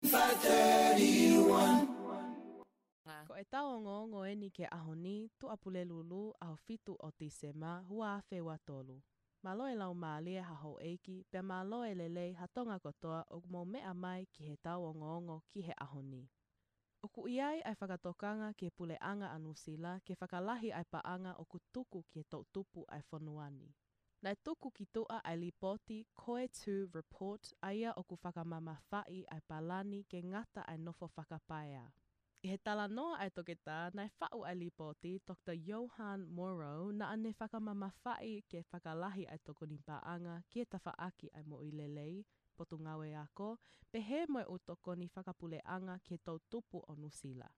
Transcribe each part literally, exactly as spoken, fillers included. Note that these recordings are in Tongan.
five thirty-one. Ko e tau ongoongo eni ki he ʻaho ni, Tuʻapulelulu, ʻaho fitu ʻo Tīsema, ua afe ua tolu. Mālō e laumālie ha houʻeiki, pea mālō e lelei ha Tonga kotoa ʻoku mou meʻa mai ki he tau ongoongo ki he ʻaho ni. ʻOku ʻi ai ʻa e fakatokanga ki he puleʻanga ʻa Nuʻusila ke fakalahi ʻa e paʻanga ʻoku tuku ki he toʻutupu ʻa e fonua ni. Naʻe tuku ki tuʻa ʻa e lipooti Koe Tū Report, ʻa ia ʻoku fakamamafaʻi ʻa e palani ke ngata ʻa e nofo fakapaea. ʻI he talanoa ʻa e toketā naʻe faʻu ʻa e lipooti, Doctor Johan Morrow, naʻa ne fakamamafaʻi ke fakalahi ʻa e tokoni paʻanga ki he tafaʻaki ʻa e moʻui lelei, potungāue ako, pehē mo e ʻū tokoni fakapuleʻanga ki he toʻutupu ʻo Nuʻusila.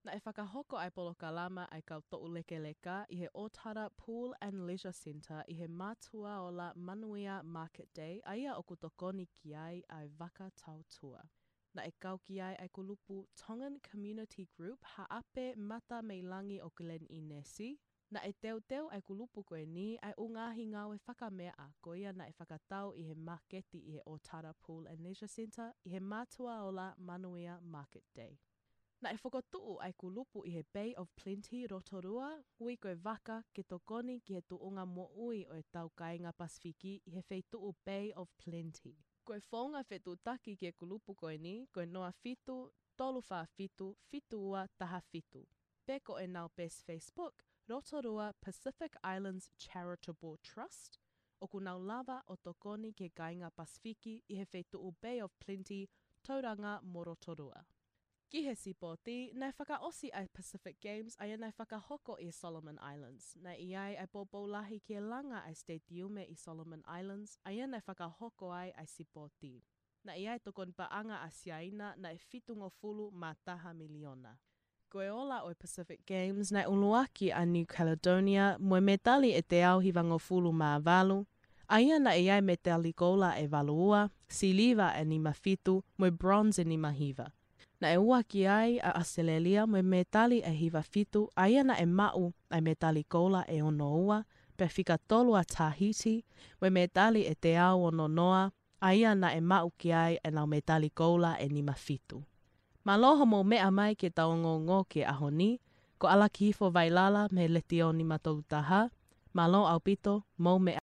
Naʻe fakahoko ʻa e polokalama ʻa e kau toʻulekeleka ʻi he ʻOtara Pool and Leisure Centre ʻi he Mātuʻa Ola Manuia Market Day, ʻa ia ʻoku tokoni ki ai ʻa e vaka tautua. Naʻe kau ki ai ʻa e kulupu Tongan Community Group, Haʻape Mata mei Langi ʻo Glen Innes. Naʻe teuteu ʻa e kulupu ko eni ʻa e ʻū ngaahi ngāue fakameʻa ko ia naʻe fakatau ʻi he māketi ʻi he ʻOtara Pool and Leisure Centre ʻi he Mātuʻa Ola Manuia Market Day. Naʻe fokotuʻu ʻa e kulupu ʻi he Bay of Plenty, Rotorua, ui ko e vaka ke tokoni ki he tuʻunga moʻui ʻo e tau kāinga Pasifiki ʻi he feituʻu Bay of Plenty. Ko e founga fetuʻutaki ki he kulupu ko eni, ko e noa fitu, tolu fā fitu, fitu ua taha fitu. Pe ko ʻenau peesi Facebook, Rotorua Pacific Islands Charitable Trust, ʻoku nau lava ʻo tokoni ki he kāinga Pasifiki ʻi he feituʻu Bay of Plenty, Tauranga mo Rotorua. Ki he sipoti, naʻe fakaʻosi ʻa e Pacific Games, ʻa ia naʻe fakahoko ʻi Solomon Islands. Naʻe ʻi ai ʻa e poupou lahi ki he langa ʻa e stadium ʻi Solomon Islands, ʻa ia naʻe fakahoko ai ʻa e sipoti. Naʻe ʻi ai e tokoni paʻanga ʻa Siaina, naʻe fitungofulu mā taha miliona. Ko e ola ʻo e Pacific Games, naʻe ʻuluaki ʻa New Caledonia mo e mētali ʻe teau hivangofulu mā valu, ʻa ia naʻe ʻi ai e mētali koula ʻe valu ua, siliva ʻe nima fitu, mo e bronze ʻe nima hiva. Naʻe ua ki ai ʻa ʻAositelēlia mo e mētali ʻe hiva fitu, ʻa ia naʻe maʻu ʻa e mētali koula ʻe ono ua, pea fika tolu ʻa Tahiti mo e mētali ʻe teau ono noa, ʻa ia naʻe maʻu ki ai ʻenau mētali koula ʻe nima fitu. Mālō hoʻomou meʻa mai ki he tau ongoongo ki he ʻaho ni, ko ʻAlakihifo Vailala mei he Letiō nima tolu taha, mālō ʻaupito, mou meʻa